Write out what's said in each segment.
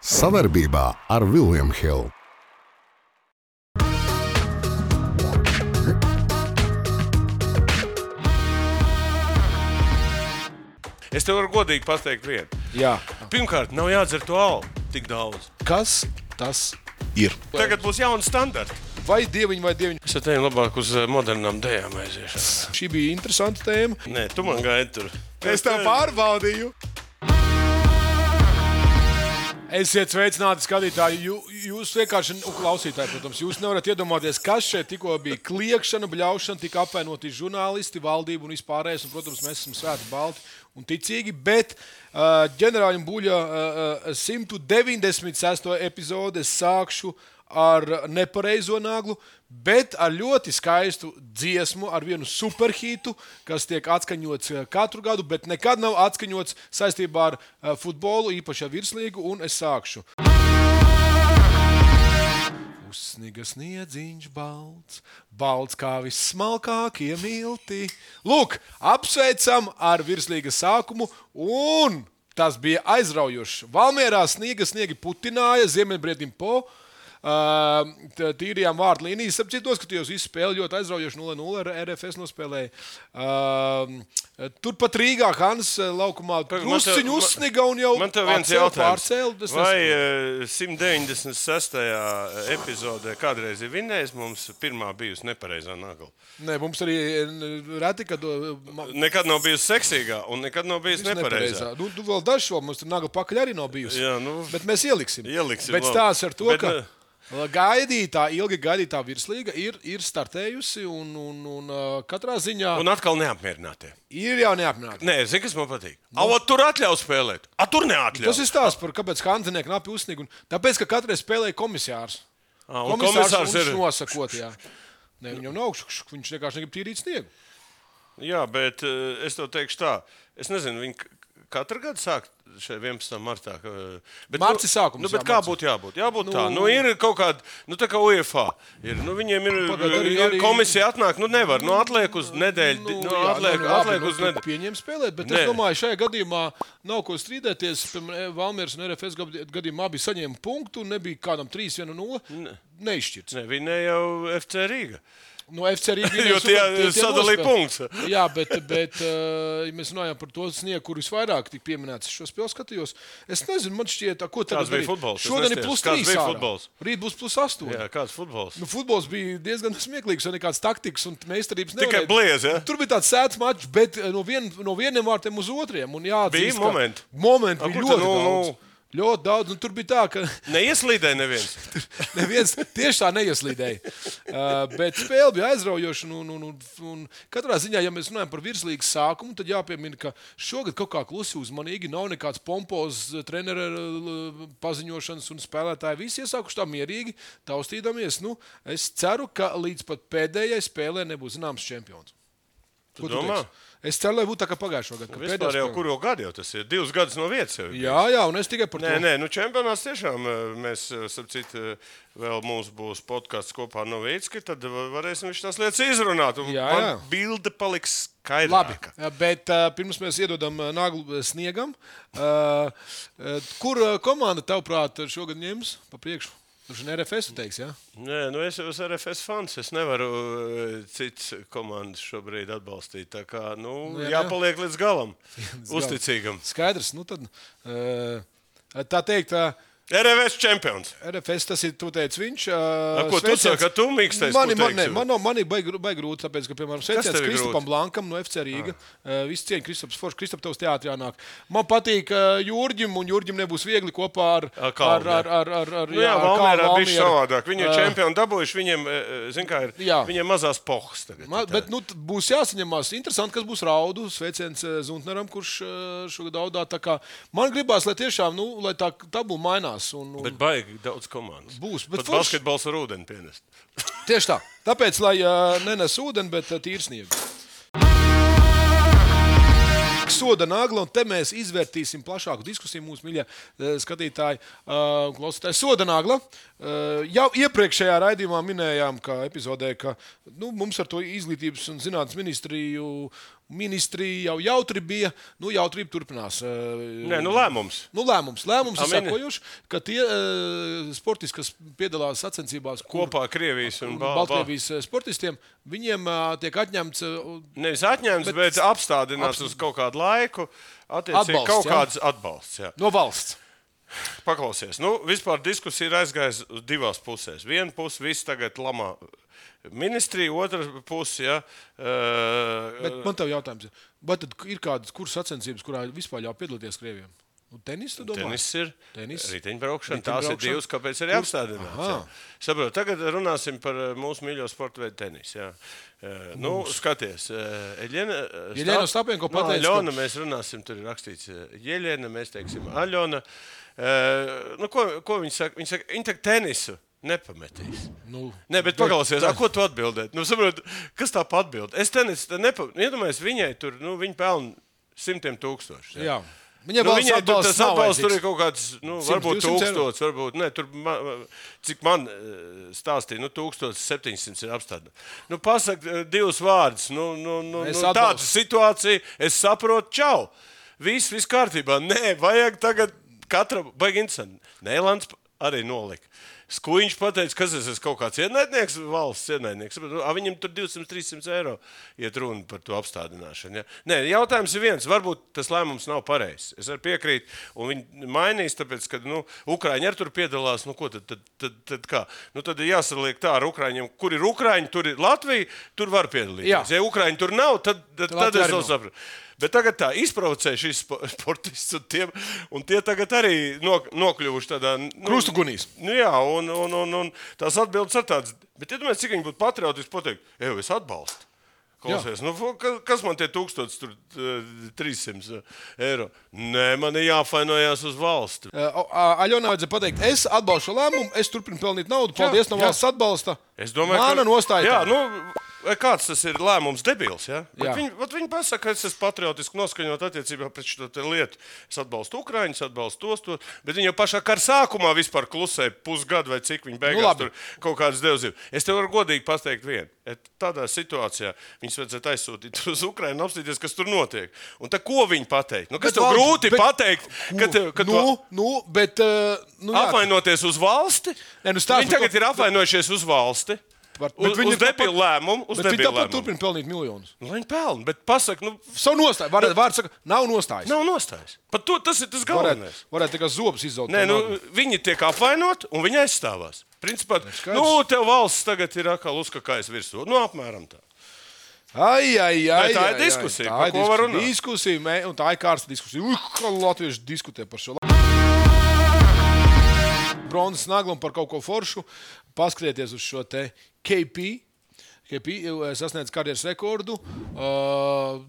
Savarbībā ar William Hill. Es tev varu godīgi pateikt vienu. Jā. Pirmkārt, nav jādzer to alu tik daudz. Kas tas ir? Tagad būs jauni standarti. Vai dieviņi vai dieviņi? Es teiktu, labāk uz modernām dejām aiziešanu. Šī bija interesanta tēma. Nē, tu man gaidi tur. Es tev pārbaudīju. Esiet sveicināti, skatītāji. Jūs vienkārši, klausītāji, protams, jūs nevarat iedomāties, kas šeit tikko bija kliekšana, bļaušana, tika apvainoti žurnālisti, valdība un vispārējais. Un, protams, mēs esam svēti, balti un ticīgi, bet ģenerāļiem Buļa 196. epizode es sākšu ar nepareizo naglu, bet ar ļoti skaistu dziesmu, ar vienu superhītu, kas tiek atskaņots katru gadu, bet nekad nav atskaņots saistībā ar futbolu, īpaši ar virslīgu, un es sākšu. Uzsniga sniedziņš balts, balts kā vissmalkākie milti. Lūk, apsveicam ar virslīgas sākumu, un tas bija aizraujoši. Valmierā sniegi putināja, ziemeļbriedim po. Tīrījām vārtu līnijas. Apciet noskatījos visu spēli ļoti aizraujoši 0-0 ar RFS nospēlēja. Turpat Rīgā Hans laukumā drusciņu uzsniga un jau man tev viens jautājums. Pārcēl. Vai 196. epizodē kādreiz ir vinnējis, mums pirmā bijusi nepareizā nagla? Nē, mums arī reti, kad... Nekad nav bijusi seksīgā un nekad nav bijusi nepareizā. Nu, vēl dažo, mums tur nagla pakaļ arī nav bijusi. Jā, nu, bet mēs ieliksim. Bet labi. stāsts ar to, ka... ilgi gaidītā virslīga ir startējusi un katrā ziņā... Un atkal neapmierinātie. Ir jau neapmierināti. Nē, zini, kas man patīk? Tur atļauj spēlēt. Tur neatļauj. Tas ir stāsts par kāpēc Hanzenieki knapi uzsniga. Tāpēc, ka katreiz spēlēja komisārs. Komisārs ir nosakot, jā. Ne, viņam nav augšs, viņš vienkārši negrib tīrīt sniegu. Jā, bet es tev teikšu tā. Es nezinu, viņi katru gadu sāk šeit 11. martā. Marts sākums. Bet kā būtu jābūt? Jābūt tā. Ir kaut kāda, tā kā UEFA. Viņiem ir komisija atnāk, nevar. Atliek uz nedēļu. Atliek uz nedēļu. Pieņem spēlēt, bet es domāju, šajā gadījumā nav ko strīdēties. Valmieras un RFS gadījumā abi saņēma punktu un nebija kādam 3-1-0. Neizšķirts. Ne, viņa jau FC Rīga. No FC Rīga jo tie sadalīja punkts. Jā, bet ja mēs runājam par to sniegu, kur visvairāk tika pieminēts. Šo spēli skatījos. Es nezinu, man šķiet, ko tagad bija futbols. Šodien ir +3 ārā. Rīt būs +8. Jā, kāds futbols? Futbols bija diezgan smieklīgs, un nekāds taktikas un meistarības nevarēja. Tikai bliez, ja? Tur bija tāds sēts mačs, bet no vieniem vārtiem uz otriem. Un jāatzīst, bija momenti. Momenti bija ļoti daudz. Ļoti daudz, un tur bija tā, ka... Neieslīdēja neviens. Neviens tieši tā neieslīdēja. Bet spēle bija aizraujoša, un katrā ziņā, ja mēs runājam par virslīgas sākumu, tad jāpiemina, ka šogad kaut kā klusi uzmanīgi, nav nekāds pompozs trenera paziņošanas un spēlētāji. Visi iesākuši tā mierīgi, taustīdamies. Es ceru, ka līdz pat pēdējai spēlē nebūs zināms čempions. Tu domā? Es ceru, lai būtu tā kā pagājušo gadu. Vispār jau kuru gadu jau tas ir? 2 gadus no vietas jau ir. Jā, un es tikai par to. Nē, čempionāts tiešām mēs, sapcīt, vēl mums būs podcasts kopā ar Novīcki, tad varēsim viņš tās lietas izrunāt. Un man bilde paliks skaidrāka. Labi, bet pirms mēs iedodam naglu sniegam, kur komanda tavuprāt šogad ņems pa priekšu? Tur ir RFS, tu teiksi, jā? Nē, es jau esmu RFS fans. Es nevaru cits komandas šobrīd atbalstīt. Tā kā, jāpaliek līdz galam. Uzticīgam. Skaidrs, tad tā teikt... RFS čempions. RFS, tas ir, tu teici, viņš. Ko tu saki, ka tu mīkstais, ko teiksi? Man ir baigi grūti, tāpēc, ka, piemēram, sveiciens Kristupam Blankam no FC Rīga. Viss cieņa Kristups Foršs, Kristup tavs teātrī jānāk. Man patīk Jurģim, un Jurģim nebūs viegli kopā ar Valmierā bišķi savādāk. Viņi ir čempioni dabūjuši, viņiem, zin kā ir, viņiem mazās pohas tagad. Bet, būs jāsaņemās. Interesanti, kas būs Raudu, sveiciens Zuntneram, kurš šogad daudā. Tā kā man gribās, lai tiešām, lai tā tabula mainās. Bet baigi daudz komandas. Būs. Pat basketbols ar ūdeni pienest. Tieši tā. Tāpēc, lai nenes ūdeni, bet tīri sniegu. Soda nagla, un te mēs izvērtīsim plašāku diskusiju mūsu mīļie skatītāji un klausītāji. Soda nagla. Jau iepriekšējā raidījumā minējām, ka epizodē, ka mums ar to izglītības un zinātnes ministriju ministrija jau jautri bija, jautrība turpinās. Nē, lēmums. Lēmums ir sekojuši, ka tie sportisti, kas piedalās sacensībās kopā Krievijas un Baltkrievijas sportistiem, viņiem tiek atņemts... Nevis atņemts, bet apstādināts uz kaut kādu laiku, attiecīgi kaut kāds atbalsts. Jā. No valsts. Paklausies. Vispār diskusija ir aizgājusi uz divās pusēs. Viena puse viss tagad lamā ministrija, otra puse, jā. Bet man tev jautājums ir, vai tad ir kādas kuras sacensības, kurā vispār jau piedalīties Krievijam? Tenis, tu domā? Tenis ir. Riteņbraukšana. Tās ir divas, kāpēc arī apstādināts. Saprot, tagad runāsim par mūsu mīļo sporta veidu tenis. Jā. Skaties. Jeļena Ostapenko pateica, Aļona, mēs runāsim, tur ir rakstīts Jeļena, mēs teiksim Aļona. Ko viņi saka? Viņi saka, viņi tak tenisu nepametīs. Nē, bet paklausies, ko tu atbildēt? Saprot, kas tā pa atbild? Es tenisu nepametīs. Iedomājies, viņai tur, viņi pelna 100,000. Jā. Viņai tas atbalsts tur ir kaut kāds, varbūt 1000, varbūt, ne, tur, cik man stāstīja, 1700 ir apstādināts. Pasak divus vārdus, tāda situācija, es saprotu, čau, viss kārtībā. Nē, vajag tagad katram, baigi interesanti. Nēlands arī nolika. Skuiņš pateica, kas es esmu kaut kāds ienaidnieks, valsts ienaidnieks. Viņam tur 200-300 eiro iet runa par to apstādināšanu. Ja? Nē, jautājums ir viens. Varbūt tas lēmums nav pareizs. Es arī piekrītu. Un viņi mainīs, tāpēc, ka Ukraiņi arī tur piedalās. Ko tad kā? Tad ir jāsaliek tā ar Ukraiņiem. Kur ir Ukraiņi, tur ir Latvija, tur var piedalīties. Jā. Ja Ukraiņi tur nav, tad es vēl sapratu. Bet tagad tā izprovocē šīs sportists un tie tagad arī nokļuvuši tādā... Krustugunīs. Jā, un tās atbildes ar tādas... Bet iedomājies, cik viņi būtu patriotiski pateikt, es atbalstu. Klausies, kas man tie 1300 eiro? Nē, man ir jāfainojās uz valsti. Aļonā vajadzēja pateikt, es atbalstu šo lēmumu, es turpinu pelnīt naudu, paldies no valsts atbalsta. Es domāju, Mana nostāja. Kāds tas ir lēmums debils, ja? Viņi pasaka, ka es esmu patriotiski noskaņot attiecībā pret šo lietu. Es atbalstu Ukraiņus, atbalstu tos, bet viņi jau pašā kara sākumā vispār klusēja pusgadu vai cik viņi beigās tur kaut kādas devzību. Es tev varu godīgi pateikt vienu. Tādā situācijā viņus vajadzētu aizsūtīt uz Ukrainu un apstīties, kas tur notiek. Un tā ko viņi pateikt? Kas tev grūti pateikt? Apvainoties uz valsti? Viņi tagad ir apvainojušies uz valsti. Uz debilu lēmumu. Viņi tāpat turpina pelnīt miljonus. Viņi pelna, bet pasaka, savu nostāju. Vārds saka, nav nostājas. Nav nostājas. Pat tas ir tas galvenais. Varētu tikai zobus izzaut. Nē, viņi tiek apvainot un viņi aizstāvās. Principā, tev valsts tagad ir atkal uzkakājas virsū. Apmēram tā. Tā ir diskusija, par ko var runāt. Un tā ir kārsta diskusija. Latvieši diskutē par šo. Bronzas naglam par kaut ko foršu. Paskrieties uz šo te KP sasniedz karjeras rekordu.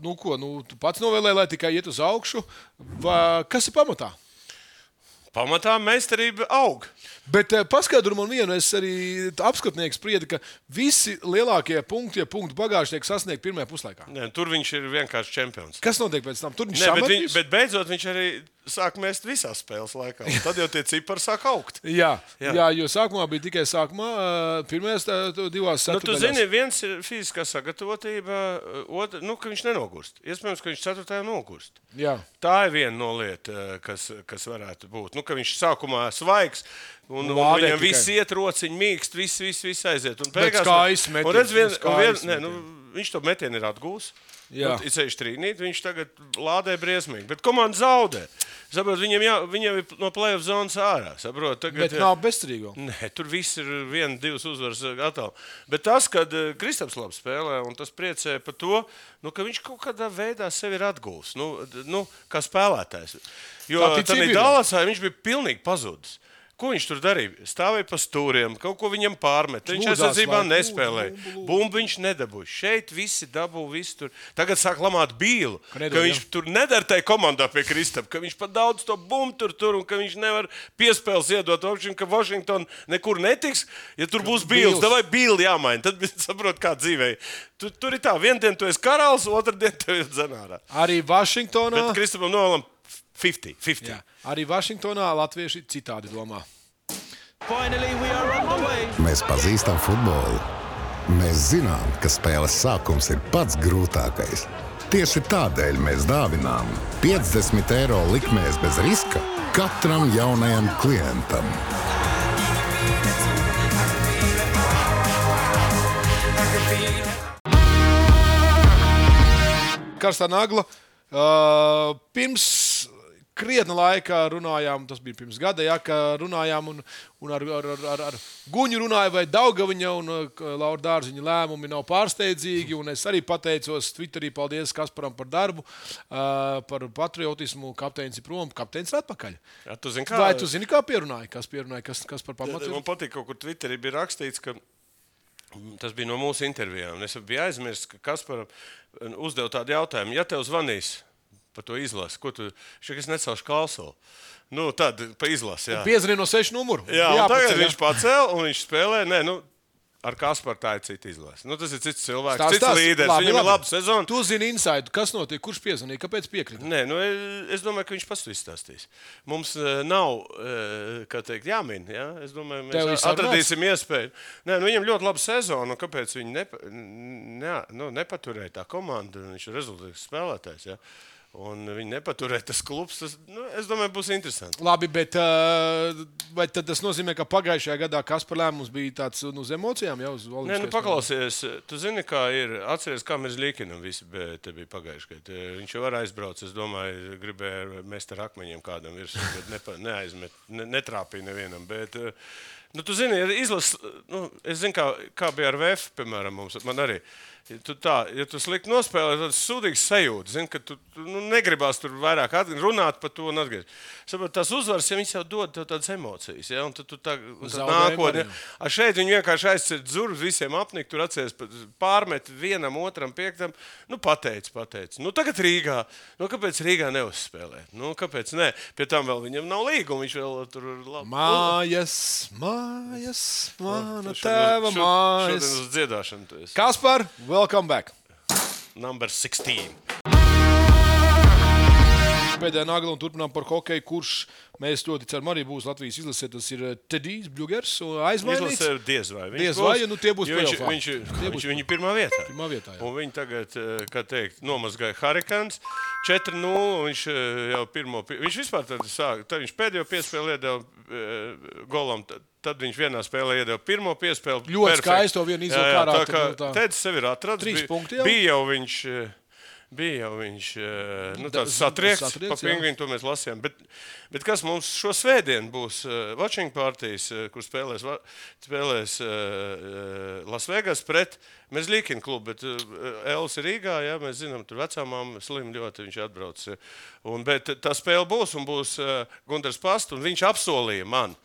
Tu pats novēlēji, lai tikai iet uz augšu. Kas ir pamatā? Pamatā meistarība aug. Bet paskaidro man vienu, es arī apskatnieks spriedi, ka visi lielākie punkti bagāži tiek sasniegti pirmajā puslaikā. Nē, tur viņš ir vienkārši čempions. Kas notiek pēc tam? Tur viņš samatīs? Bet beidzot viņš arī sāk mest visās spēles laikā. Tad jau tie cipari sāk augt. Jā, jo sākumā bija tikai pirmajās divās ceturtdaļās. Tu zini, viens ir fiziskā sagatavotība, ka viņš nenogurst. Iespējams, ka viņš ceturtajā nogurst. Jā. Tā ir viena no lieta, kas varētu būt. Ka viņš sākumā svaigs, un viņam viss iet rociņi, mīkst, viss aiziet. Un beigās, viņš to metienu ir atgūs. Ir ceļš trīnīt, viņš tagad lādē briesmīgi. Bet komanda zaudē. Saprot, viņam ir no play-off zonas ārā. Saprot, bet nav bezcerīgo. Nē, tur viss ir 1-2 uzvaras gatavi. Bet tas, kad Kristaps labi spēlē, un tas priecē par to, ka viņš kaut kādā veidā sevi ir atgūs. Kā spēlētājs. Jo tādā Dallasā viņš bija pilnīgi pazudis. Ko viņš tur darīja? Stāvēja pa stūriem, kaut ko viņam pārmet. Viņš aizsardzībā nespēlēja. Bumbu viņš nedabūja. Šeit visi dabū, visi tur. Tagad sāk lamāt Bīlu, ka viņš tur nedara tai komandā pie Kristapa, ka viņš pat daudz to bumbu tur, un ka viņš nevar piespēles iedot, ka Washington nekur netiks. Ja tur būs Bīls, tad vai Bīli jāmaina. Tad saprot, kā dzīvē. Tur ir tā, vienu dienu tu esi karalis, otru dienu tu esi dzenārā. Arī Washingtonā. Bet Kristapam novēlam 50. Jā. Arī Vašingtonā latvieši citādi domā. Mēs pazīstam futbolu. Mēs zinām, ka spēles sākums ir pats grūtākais. Tieši tādēļ mēs dāvinām 50 eiro likmēs bez riska katram jaunajam klientam. Karstā nagla. Pirms krietna laika runājām, tas bija pirms gada, ka runājām un ar Guņu runāju, vai Daugaviņa un Laura Dārziņa lēmumi nav pārsteidzīgi. Un es arī pateicos Twitterī, paldies Kasparam par darbu, par patriotismu. Kapteinis ir prom, kapteinis ir atpakaļ. Jā, tu zini, vai tu zini, kā pierunāja? Kas par pamatu? Man patīk, kaut kur Twitterī bija rakstīts, ka tas bija no mūsu intervijām. Es biju aizmirsis, ka Kasparam uzdev tādu jautājumu. Ja tev zvanīs par to izlasi, ko tu šeit necelšu kalsolu? Nu, tad pa izlasi, jā. Piezvanīja no 6 numuru. Jā, un tagad viņš pacēla un viņš spēlē. Nē, nu, ar Kasparu tā ir cita izlase. Nu, tas ir cits cilvēks, cits līderis. Viņam ir laba sezona. Tu zini insaidu, kas notiek, kurš piezvanīja, kāpēc piekrita? Nē, nu, es domāju, ka viņš pats to izstāstīs. Mums nav, kā teikt, jāmin. Ja? Es domāju, mēs atradīsim iespēju. Nē, nu, viņam ļoti laba sezona, un kāpēc viņi nepaturēja tā komanda, viņš ir rezultāts spēlētājs. Ja? Un viņi nepaturēja tas klubs. Tas, es domāju, būs interesanti. Labi, bet vai tas nozīmē, ka pagājušajā gadā Kaspar lēmums bija tāds uz emocijām? Jā, uz nē, nu paklausies. Tu zini, kā ir. Atceries, kā mēs Līkinam visi te bija pagājušajā gadā. Viņš jau var aizbraukt. Es domāju, gribēja mest ar akmeņiem kādam virsū, bet netrāpīja nevienam. Bet, nu, tu zini, izlases, nu, es zinu, kā bija ar VF, piemēram, man arī. Ja tu slikti nospēlē, tad sūdīgs sajūta. Zini, ka tu negribās tur vairāk runāt par to un atgriezt. Saprot, tās uzvaras, ja viņas jau dod tev tādas emocijas, ja, un tad tu tā nākotnē. Šeit viņi vienkārši aizcer dzurus visiem apnikt, tur atceries pārmet vienam, otram, piektam. Nu, pateic. Nu, tagad Rīgā. Nu, kāpēc Rīgā neuzspēlēt? Nu, kāpēc ne? Pie tam vēl viņam nav līguma, viņš vēl tur labi. Mājas, mana tēva mājas. Šodien uz dziedāšanu tu esi. Kaspar, welcome back. Number 16. Pēdējā nagla un turpinām par hokeju, kurš mēs ļoti ceram arī būs Latvijas izlasē. Tas ir Tedijs Bļugers aizmainīts. Izlasē diez vai. Diez vai, nu tie būs play-offā. Viņi pirmā vietā. Pirmā vietā, jā. Un viņi tagad, kā teikt, nomazgāja Hurricanes 4-0. Viņš jau viņš vispār tad viņš pēdējo piespēli iedeva golam. Tad viņš vienā spēlē iedeva pirmo piespēli. Ļoti skaisto vienu izvēlu kārā. Tedis sevi ir atradis. 3 punkti jau. Bija jau viņš tāds satriekts pa pingvīnu, to mēs lasījām. Bet kas mums šo svētdienu būs watching partijas, kur spēlēs Las Vegas pret Mezlīkina klubu, bet Elis ir Rīgā, ja, mēs zinām, tur vecāmām slim ļoti viņš atbrauc. Bet tā spēle būs un būs Gundars Pasts, un viņš apsolīja man,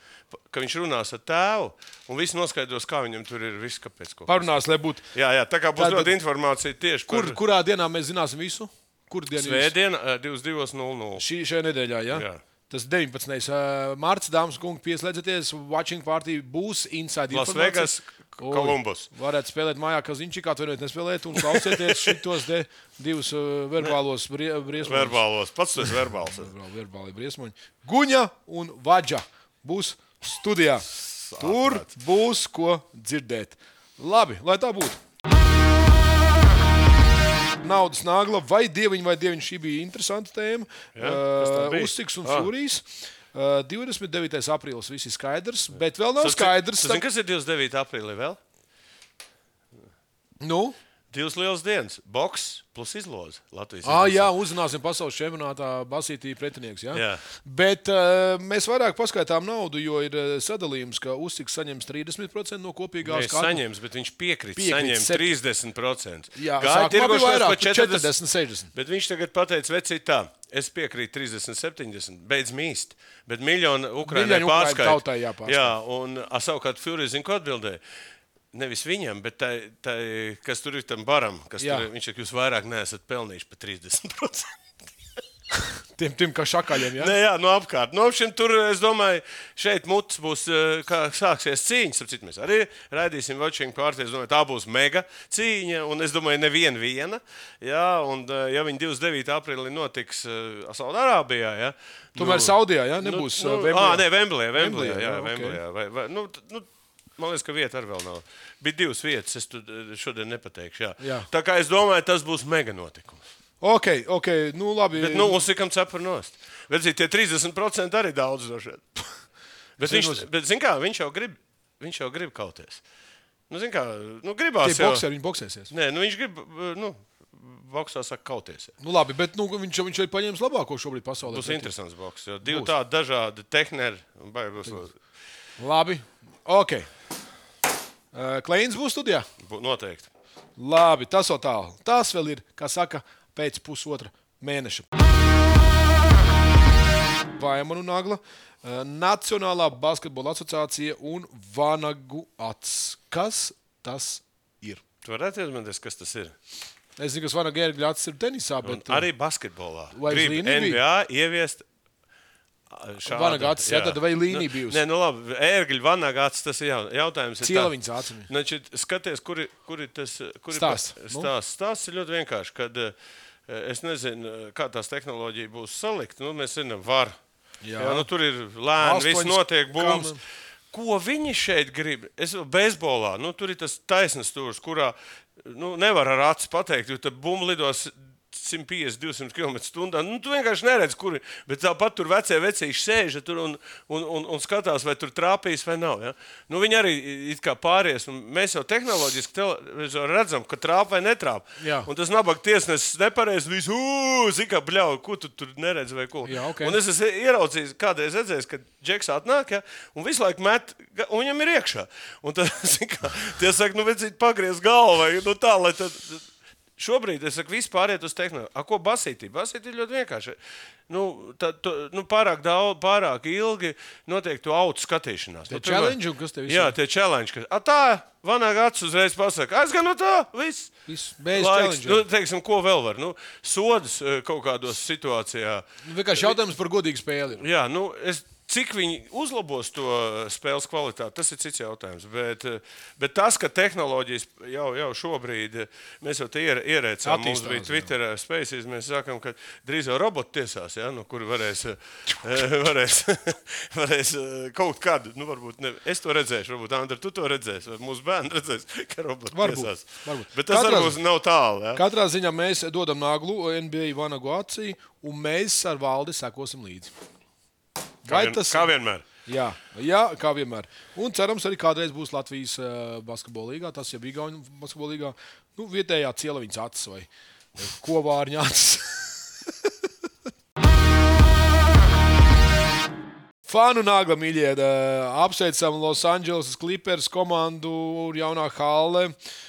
ka viņš runās ar tēvu, un viss noskaidros, kā viņam tur ir viss, kāpēc. Parunās, lai būtu. Jā, tā kā būs ļoti informācija tieši par... Kurā dienā mēs zināsim visu? Svētdiena 22:00. Šajā nedēļā, jā? Tas 19. Marts, dāmas un kungi, pieslēdzieties. Watching party būs inside Las Vegas, Kolumbus. Varētu spēlēt mājā, ka Ziņčikā atvainojiet nespēlēt un klausieties šitos divus verbālos briesmoņus. Verbālos, pats tu esi verbāls. Verbāli briesmoņi. Guņa un Vadža būs studijā. Tur būs ko dzirdēt. Labi, lai tā būtu. Naudas nagla, vai dieviņi, šī bija interesanta tēma. Uzciks un Fūrijs. 29. aprīlis viss ir skaidrs, bet vēl nav skaidrs. Zini, kas ir 29. aprīlī vēl? Nu? 2 lielas dienas. Boks plus izloze Latvijas. Jā, uzzināsim pasaules čempionātā basītī pretinieks. Jā? Bet mēs vairāk paskaitām naudu, jo ir sadalījums, ka Uzciks saņems 30% no kopīgās kārtas. Saņems, bet viņš piekrīt saņemt 30%. Jā, sākumā bija vairāk, 40-60. Bet viņš tagad pateica, vecīt tā, es piekrītu 30-70, beidz mīst, bet miljonu Ukrainai pārskaita. Jā, un savukārt Fūrijs zin, ko atbildēja. Nevis viņam, bet tai, kas tur ir tam baram, viņš ir, jūs vairāk neesat pelnījuši par 30%. Tiem kā šakaļiem, jā? Nē, jā, no apkārt. No šim tur, es domāju, šeit mutes būs, kā sāksies cīņas, ap citu mēs arī raidīsim watching party, es domāju, tā būs mega cīņa, un es domāju, viena. Jā, un ja viņi 29. aprīlī notiks Saudārābijā, jā. Tomēr Saudijā, jā, nebūs Vemblijā. Nē, Vemblijā, jā, Vemblijā. Man liekas, ka vieta arī vēl nav. Bija 2 vietas, es šodien nepateikšu. Jā. Tā kā es domāju, tas būs mega notikums. Ok, nu labi. Bet, uzsikam cepur nost. Bet, tie 30% arī daudz došeit. Bet zin kā, viņš jau grib kauties. Zin kā, gribās tie bokseri, viņi boksēsies. Nē, viņš grib, boksā saka kauties. Labi, bet viņš ir paņēmis labāko šobrīd pasaulē. Būs interesants boks, jo 2 tādi dažādi tehneri. Labi, ok. Kleins būs studijā? Noteikti. Labi, tas vēl tālu. Tas vēl ir, kā saka, pēc pusotra mēneša. Vaimanu Nagla, Nacionālā basketbola asociācija un Vanagu acs. Kas tas ir? Tu varētu iedomāties, kas tas ir? Es zinu, ka Vanagu ērgļu acs ir tenisā, bet... Arī basketbolā. Vai grib NBA ieviest šādu. Vanagu acs, jā, tad vai līnija bijusi? Nē, labi, ērgļu Vanagu acs, tas ir jautājums. Cielaviņas acis. Skaties, kuri tas... Stāsts ir ļoti vienkārši, kad es nezinu, kā tās tehnoloģija būs salikt. Mēs zinām, var. Jā, tur ir lēni, viss notiek, bums. Ko viņi šeit grib? Beisbolā, tur ir tas taisnas stūrs, kurā nevar ar acis pateikt, jo tad bumba lidos 150-200 km/h. Tu vienkārši neredz, kuri, bet tāpat tur vecīši sēž tur un skatās, vai tur trāpīs vai nav. Ja? Viņi arī it kā pāries. Mēs jau tehnoloģiski redzam, ka trāp vai netrāp. Jā. Un tas nabaga tiesnesis nepareiz, visu, zika, bļauj, ko tu tur neredz vai ko. Jā, okay. Un es esmu ieraudzījis, kādreiz redzējis, kad Džeks atnāk, ja, un visu laiku met, un viņam ir iekšā. Un tad, zika, tie saka, vecīt pagriez galvu vai tā, lai tad... Šobrīd es saku, viss pāriet uz tehnoloģiju. Ko basītī? Basītī ir ļoti vienkārši. Pārāk ilgi notiek to autu skatīšanās. Tie challenge, kas tev jā, tie challenge. Tā, Vanagu acs uzreiz pasaka, aizgan no tā, viss. Bez challenge. Teiksim, ko vēl var? Sodas kaut kādos situācijā. Vienkārši jautājums par godīgu spēli. Jā, cik viņi uzlabos to spēles kvalitāti, tas ir cits jautājums. Bet tas, ka tehnoloģijas jau šobrīd, mēs jau te ierēcām, mums bija Twitter Spaces, mēs sakām, ka drīz jau roboti tiesās, ja, kuri varēs kaut kādu, varbūt ne, es to redzēšu, varbūt Andra, tu to redzēsi, vai mūsu bērni redzēs, ka roboti tiesās. Varbūt. Bet tas varbūt nav tālu. Ja? Katrā ziņā mēs dodam Naglu NBA Vanagu acī, un mēs ar Valdi sekosim līdzi. Kā vienmēr. Jā, kā vienmēr. Un cerams, arī kādreiz būs Latvijas basketbola līgā, tas jau bija Igauņu basketbola līgā, vietējā Cielaviņas acis vai Kovārņa acis. Fanu Nagla, mīļie, apsveicam Los Angeles Clippers komandu jaunā halle.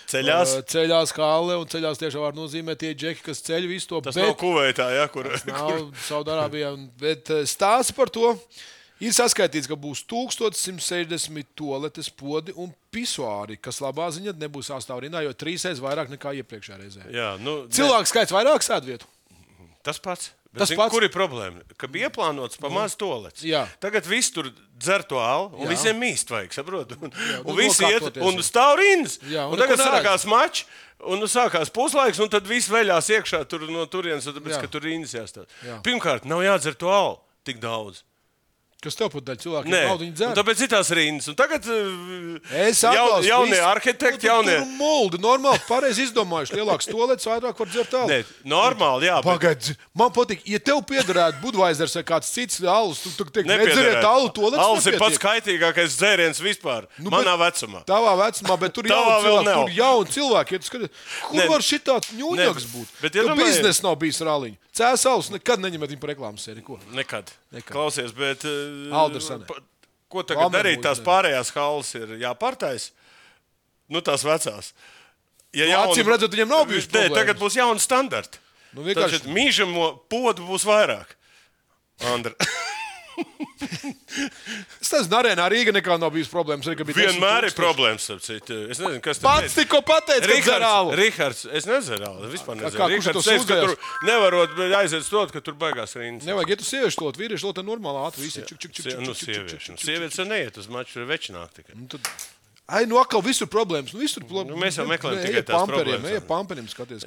Ceļās halle, un ceļās tiešām var nozīmēt tie džeki, kas ceļ visu to. Tas nav Kuveitā, ja, kur? Tas nav Saudārābijā, bet stāsts par to ir saskaitīts, ka būs 1160 toaletes podi un pisuāri, kas labā ziņā nebūs sastāvrindā, jo 3 vairāk nekā iepriekšējā reizē. Jā, cilvēku skaits vairāk sēdvietu. Tas pats. Kur ir problēma? Ka bija ieplānots pa maz toalets. Tagad viss tur dzer to alu, un visiem mīst vajag, saprot? Un visi iet, un stāv rindas. Un tagad sākās mačs, un sākās puslaiks, un tad viss veļās iekšā tur no turienes, tāpēc, ka tur rindas jāstāv. Pirmkārt, nav jādzer to alu tik daudz. Kas tev pat daļ cilvēkiem naudu viņi dzer? Tāpēc ir tās rindas. Un tagad jaunie arhitekti, jaunie... Tur muldi, normāli, pareizi izdomājuši. Lielāks toalets, vairāk var dzert alu. Nē, normāli, jā. Pagaid, man patīk, ja tev piederētu Budweisers vai kāds cits alus, tu teikt, nedzeriet alu, toalets alus ir pats kaitīgākais dzēriens vispār. Manā vecumā. Tavā vecumā, bet tur jauni cilvēki. Kur var šitāds ņūņaks būt? Tu biznes nav bijis ar aliņu. Cēs alus nekad neņemet viņu par reklāmas sēriju. Nekad. Klausies, bet ko tagad Lamer darīt? Tās pārējās halles ir jāpārtais. Tās vecās. Acīm redzot, viņiem nav bijuši problēmas. Tagad būs jauni standarti. Tātad mīžamo podu būs vairāk. Andra. Es nezinu, arēnā Rīga nekā nav bijis problēmas. Vienmēr ir problēmas, es nezinu, kas pats tikko pateica, ka dzer alu. Rihards, es nedzeru alu, vispār nedzeru. Rihards teica, ka tur nevarot aiziet stot, ka tur baigās rindas. Nevajag, ja tu sieviešu lot, vīriešu lot, normāli ātri visi. Sievietes jau neiet uz maču, tur večināk tikai. Atkal visur problēmas. Mēs jau meklējam tikai tās problēmas. Eja pamperiem skaties.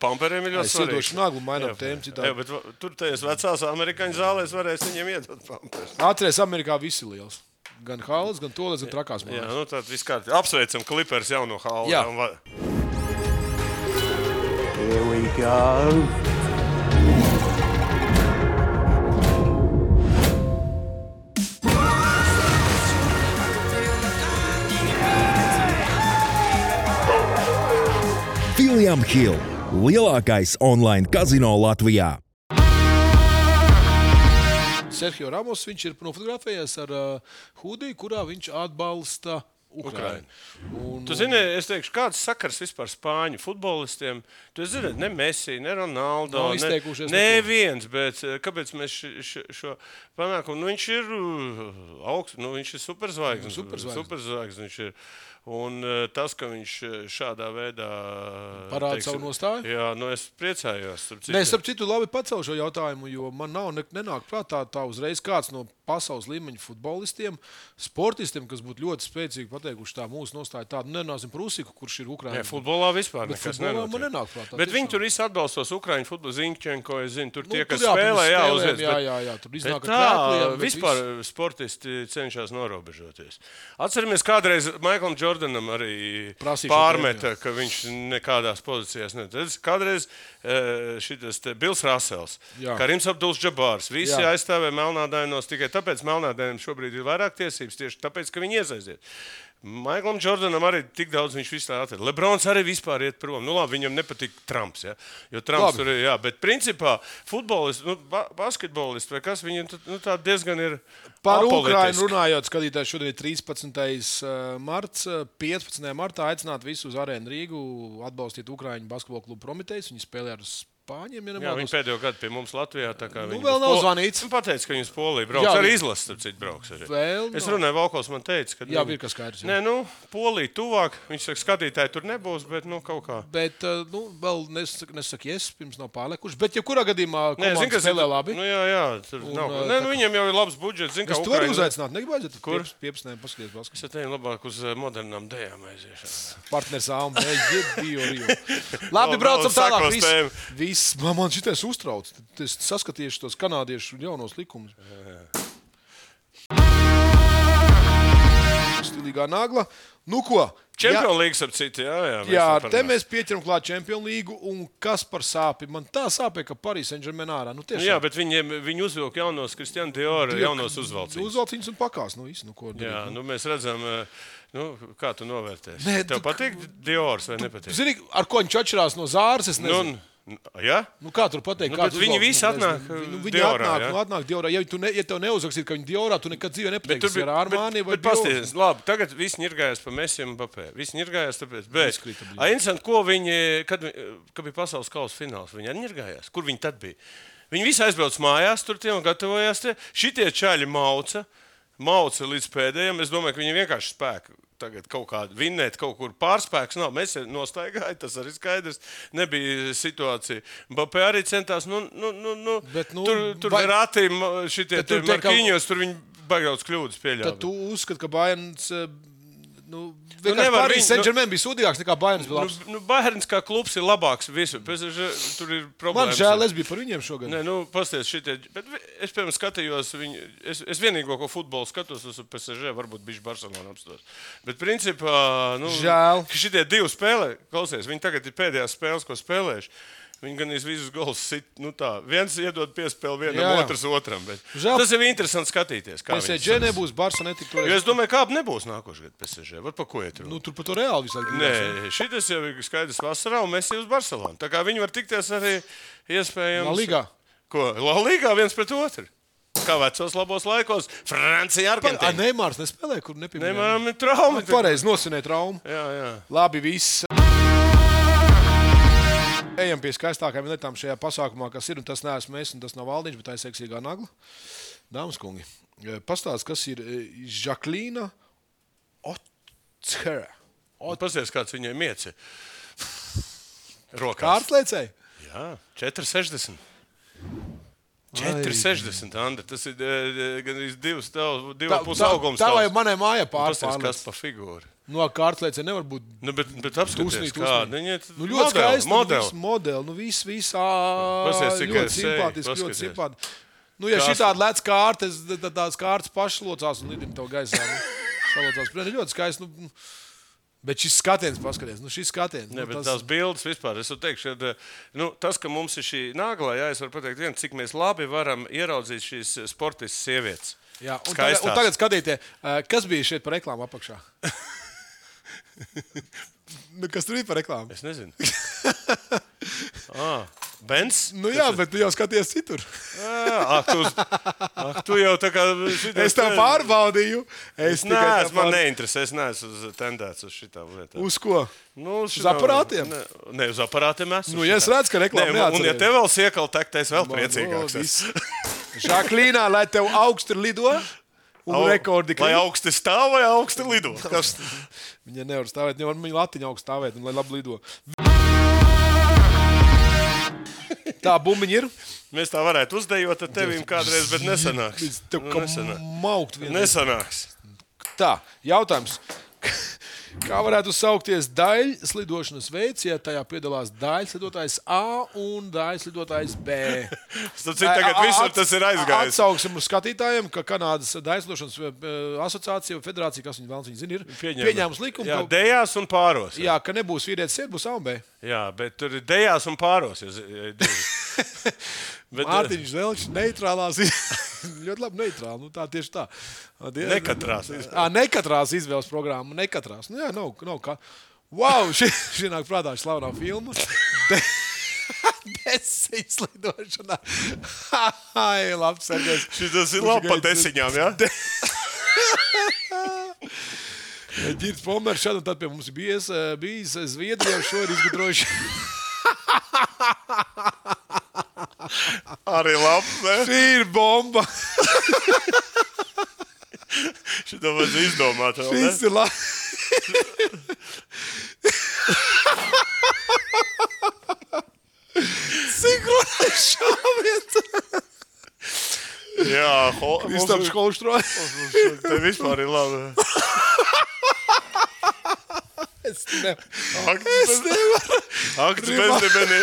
Pamperiem ir ļoti svarīgi. Es iedošu Naglu, mainām tēmu citādi. Bet tur tajās vecās amerikāņu zālēs varēs viņiem iedot pamperus. Atceries, Amerikā visi liels. Gan halles, gan toles, gan trakās Jā, mājas. nu tad viskārt apsveicam Clippers jauno halli. Jā. Here we go. William Hill, lielākais online kazino Latvijā. Sergio Ramos, viņš ir nofotografējies ar hudiju, kurā viņš atbalsta Ukrainu. Tu zini, es teikšu, kāds sakars vispār spāņu futbolistiem? Tu zini, ne Messi, ne Ronaldo, neviens, bet kāpēc mēs šo panākumu? Nu, viņš ir augsts, nu, viņš ir superzvaigznes. Superzvaigznes viņš ir. Un tas, ka viņš šādā veidā parāda savu nostāju. Jā, nu es priecājos. Starp citu, labi pacēlu šo jautājumu, jo man nenāk prātā tā uzreiz kāds no pasaules līmeņa futbolistiem, sportistiem, kas būtu ļoti spēcīgi pateikuši tā mūsu nostāja tādu. Nenāsim par Usiku, kurš ir Ukraiņa. Nē, futbolā vispār bet nekas nenotiek. Man nenāk prātā. Bet viņi tur visi atbalstos Ukraiņu futbolu, Ziņķenko, es zinu, tur tie, kas tur spēlē, uzviec. Jā, tur iznāk ar krēkliem. Vispār sportisti cenšas norobežoties. Atceramies, kādreiz Maiklam Jordanam arī pārmeta, ka viņš nekādās pozīcijās nedod. Kādreiz šitas Bils Rasels, Karims Abdul-Džabārs, visi aizstāvēja melnādainos tikai tāpēc melnādainiem šobrīd ir vairāk tiesības, tieši tāpēc, ka viņi iesaiziet. Maiklam Jordanam arī tik daudz viņš vispār atrada. Lebrons arī vispār iet prom. Nu labi, viņam nepatīk Trumps, ja? Jo Trumps tur ir, bet principā futbolisti, basketbolisti vai kas, viņi tā diezgan ir par apolitiski. Ukrainu runājot, skatītājs šodien ir 13. marts, 15. martā aicināt visus uz Arēnu Rīgu atbalstīt Ukraiņu basketbola klubu Prometejs. Viņi spēlē ar Spāņiem, jā, viņi pēdējo gadu pie mums Latvijā. Vēl nav zvanīts. Viņi pateica, ka viņi uz Poliju brauks. Arī izlases, starp citu, brauks. Es runāju, Valkos man teica, ka... Jā, ir kas skaidrs. Nē, Polija tuvāk. Viņš saka, skatītāji tur nebūs, bet kaut kā. Bet, vēl nesaka, pirms nav pārlekuši. Bet, ja kurā gadījumā komanda spēlē labi. Jā, tur nav. Viņiem jau ir labs budžets. Zin, es to varu uzaicināt. Negabājiet, kur? 15. paskaties basketbolu. Es teiktu labāk uz modernām dējām aiziešana. Partners Alma, Rio. Labi, braucam tālāk. Viss, man šitais uztrauc. Es saskatīšu tos kanādiešu jaunos likumus. Stilīgā nagla. Nu ko? Čempionu līgas ap citu, jā. Jā, te mēs pieķeram klāt Čempionu līgu, un kas par sāpi? Man tā sāpē, ka Paris Saint-Germain ārā. Jā, bet viņi uzvilk jaunos Kristiāna Diora, jaunos uzvalciņus. Uzvalciņus un pakās, ko darīt. Jā, mēs redzam, kā tu novērtēsi. Tev patīk Diors vai nepatīk? Zini, ar ko viņš atšķirās no Zāras, es nezinu. Ja? Kā tur pateikt? Viņi visi atnāk Diorā. Atnāk Diorā. Ja tev neuzrakstītu, ka viņi Diorā, tu nekad dzīvē nepateiksi ar Armani vai Diorā. Bet pasties, labi, tagad visi ņirgājās pa Messi un Mbappé. Visi ņirgājās tāpēc. Bet, interesanti, ko viņi, kad bija pasaules kausa fināls, viņi arī ņirgājās. Kur viņi tad bija? Viņi visi aizbrauc mājās, tur tie un gatavojās tie. Šitie čaļi mauca līdz pēdējiem. Es domāju, ka viņi vienkārši spēku. Tagad kaut kāda vinnēt, kaut kur pārspēks nav. Mēs nostaigājām, tas arī skaidrs. Nebija situācija. Mbappé arī centās, tur Verratti, šitie Markiņos, tur viņi baigauts kļūdas pieļāva. Tad tu uzskati, ka Bayerns... Paris Saint-Germain bija sūdīgāks nekā Bayerns bija labs. Bayerns kā klubs ir labāks visu. Tur ir problēmas. Man žēl, es biju par viņiem šogad. Nē, pasties šitie. Bet es, piemēram, skatījos viņu. Es vienīgo, ko futbolu skatos, uz PSG, varbūt bišķi Barcelona apstos. Bet principā, žēl. Šitie divi spēlē, klausies, viņi tagad ir pēdējās spēles, ko spēlējuši. Viņi gan visus golus sit, viens iedod piespēli vienam, otrs otram. Tas ir interesanti skatīties. PSG nebūs, Barca netika toreiz. Jo es domāju, kāda nebūs nākošais gadu PSG. Var pa ko iet? Tur pa to Reāli visādi. Nē, šitas jau ir skaidrs vasarā, un Messi uz Barcelonu. Tā kā viņi var tikties arī iespējams. La Ligā. Ko? La Ligā viens pret otru. Kā vecos labos laikos. Francija, Argentīna. Neimārs nespēlē, kur nepieminēja. Neimāram ir trauma. Pareizi nosinē traumu. Jā. Labi, viss. Ejam pie skaistākajām lietām šajā pasākumā, kas ir, un tas neesmu es, un tas nav Valdiņš, bet tā ir seksīgā nagla. Dāmas kungi, pastāst, kas ir Žaklīna Otskera. Pasties, kāds viņai mieci. Rokās. Kārtlēcēji? Jā, 4,60. 4,60, Anda. Tas ir gan 2,5 augums. Tā vai manai mājā pārlēc. Pasties, kas pa figūru. No kārtlēcē nevar būt. Bet apskaties, kāda. Ļoti skaisti. Modeli. Viss ļoti simpātiski, ļoti simpātiski. Nu, ja šitādi lec kārtas, tad tās kārtas pašlocās un lidina to gaisā. Salocās. Ļoti skaisti. Bet šis skatiens, paskaties, šis skatiens. Ne, bet tās bildes vispār, es teikšu, tas, ka mums ir šī nāglā, jā, es varu pateikt vienu, cik mēs labi varam ieraudzīt šīs sportistas sievietes. Jā, un tagad skatīties, kas bija šeit par reklāmu apakšā? Kas tur bija par reklāmu? Es nezinu. Benz? Jā, bet tu jau skaties citur. Tu jau tā kā... Es tev pārbaudīju. Man neinteresē, es neesmu tendēts uz šitām lietām. Uz ko? Uz aparātiem? Ne, uz aparātiem esmu. Ja es redzu, ka reklāma neatcerēju. Un ja tev vēl siekal tekt, es vēl priecīgāks. Žaklīnā, lai tev augsti lido un rekordi klīt. Lai augsti stāv vai augsti lido? Viņa nevar stāvēt, viņa latiņa augsti stāvēt un lai labi lido. Tā bumbiņa ir. Mēs tā varētu uzdejot ar tevīm kādreiz, bet nesanāks. Tev kā maukt vienreiz. Nesanāks. Tā, jautājums. Kā varētu saukties daļslidošanas veids, ja tajā piedalās daļslidotājs A un daļslidotājs B? Tagad visur tas ir aizgājis. Atsauksim uz skatītājiem, ka Kanādas daļslidošanas asociācija, federācija, kas viņi zina, ir pieņēmusi likumu. Jā, dejās un pāros. Jā, ka nebūs vīrietis sēd, būs A un B. Jā, bet tur ir dejās un pāros. Mārtiņš Zelčs, neitrālās. Ļoti labi neitrāli. Tā tieši tā. Nekatrās izvēles programma. Nekatrās. Jā, nav kā. Wow, šī nāk prātā slavenā filma. Desiņas lidošanā. Ai, labi, Sergejs. Šitas ir labi pa desiņām, jā? Ģirds Pomers šad un tad pie mums bijis Zviedrijā, šo ir izgudrojuši. Arī labi, ne? Šī ir bomba. Šito vajadz izdomāt vēl, ne? Šis ir labi. Sinhronais šāviens. Jā, Kristaps Holštrojas. Te vispār ir labi. Es nevaru. Akts bezdibeni.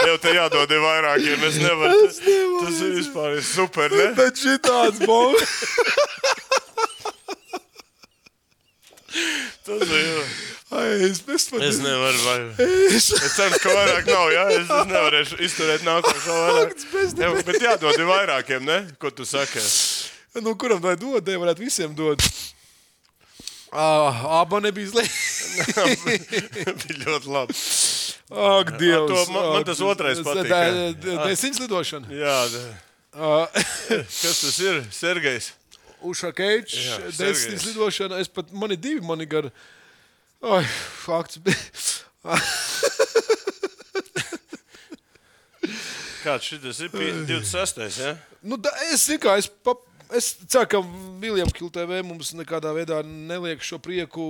Jau te jādod vairākiem. Es nevaru. Tas ir vispār super, ne? Bet šitāds bomba. Tas ir. Es nevaru. Es ceru, ka vairāk nav, jā? Es nevarēšu izturēt nākošo vairāk. Bet jādod vairākiem, ne? Ko tu saki? Kuram vai dod? Varētu visiem dod. Aba nebija slēgt. Bija ļoti labi. Ak, Dievs. Man tas otrais patīk. Desiņas lidošana. Jā. Kas tas ir? Sergejs? Ušakeičs, desiņas lidošana. Mani divi, mani gar... Ai, fakts. Kāds šitas ir? 26. ja? Es ceru, ka Viljam Hill TV mums nekādā veidā neliek šo prieku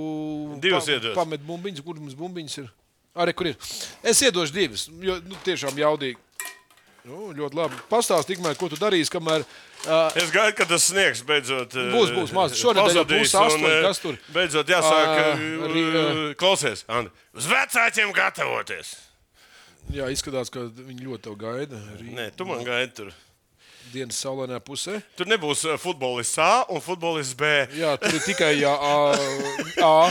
pamet bumbiņas. Kur mums bumbiņas ir? Arī, kur ir? Es iedošu divas, jo tiešām jaudīgi. Ļoti labi. Pastāst tikmēr, ko tu darīsi, kamēr... Es gaidu, ka tas sniegs beidzot... Būs maz. Šonedēļ jau būs 8, kas tur? Beidzot jāsāk... Klausies, Andi. Uz vecākiem gatavoties. Jā, izskatās, ka viņi ļoti tev gaida. Nē, tu man gaidi tur. Dienas saulainajā pusē. Tur nebūs futbolists A un futbolists B. Jā, tur ir tikai A.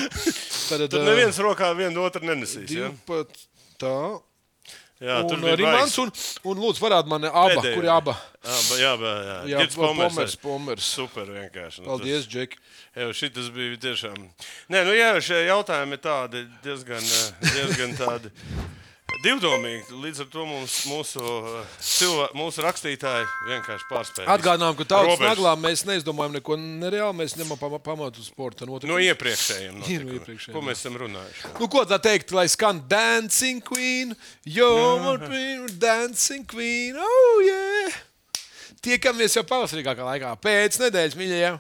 Tur neviens rokā vienu otru nenesīs. Tā. Jā, tur bija Rimants un lūdzu parād man aba. Pēdējā. Kur ir aba? Jā. Ģirds Pomers. Super vienkārši. Paldies, Džeki. Jā, šitas bija tiešām... Nē, jā, šie jautājumi ir tādi diezgan tādi... Divdomīgi, līdz ar to mūsu rakstītāji vienkārši pārspēja. Atgādinām, ka tautas naglā mēs neizdomājam neko nereāli, mēs ņemam pamatu sporta notiekumus. No iepriekšējiem notikumiem. Ko mēs esam runājuši? Ko tā teikt, lai skan Dancing Queen, you're Dancing Queen, oh yeah! Tiekamies jau pavasarīgākā laikā, pēc nedēļas, mīļajiem!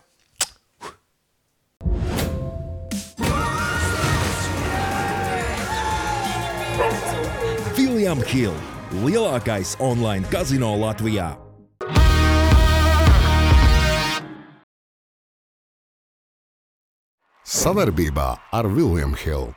William Hill, lielākais online kazino Latvijā. Savarbībā ar William Hill.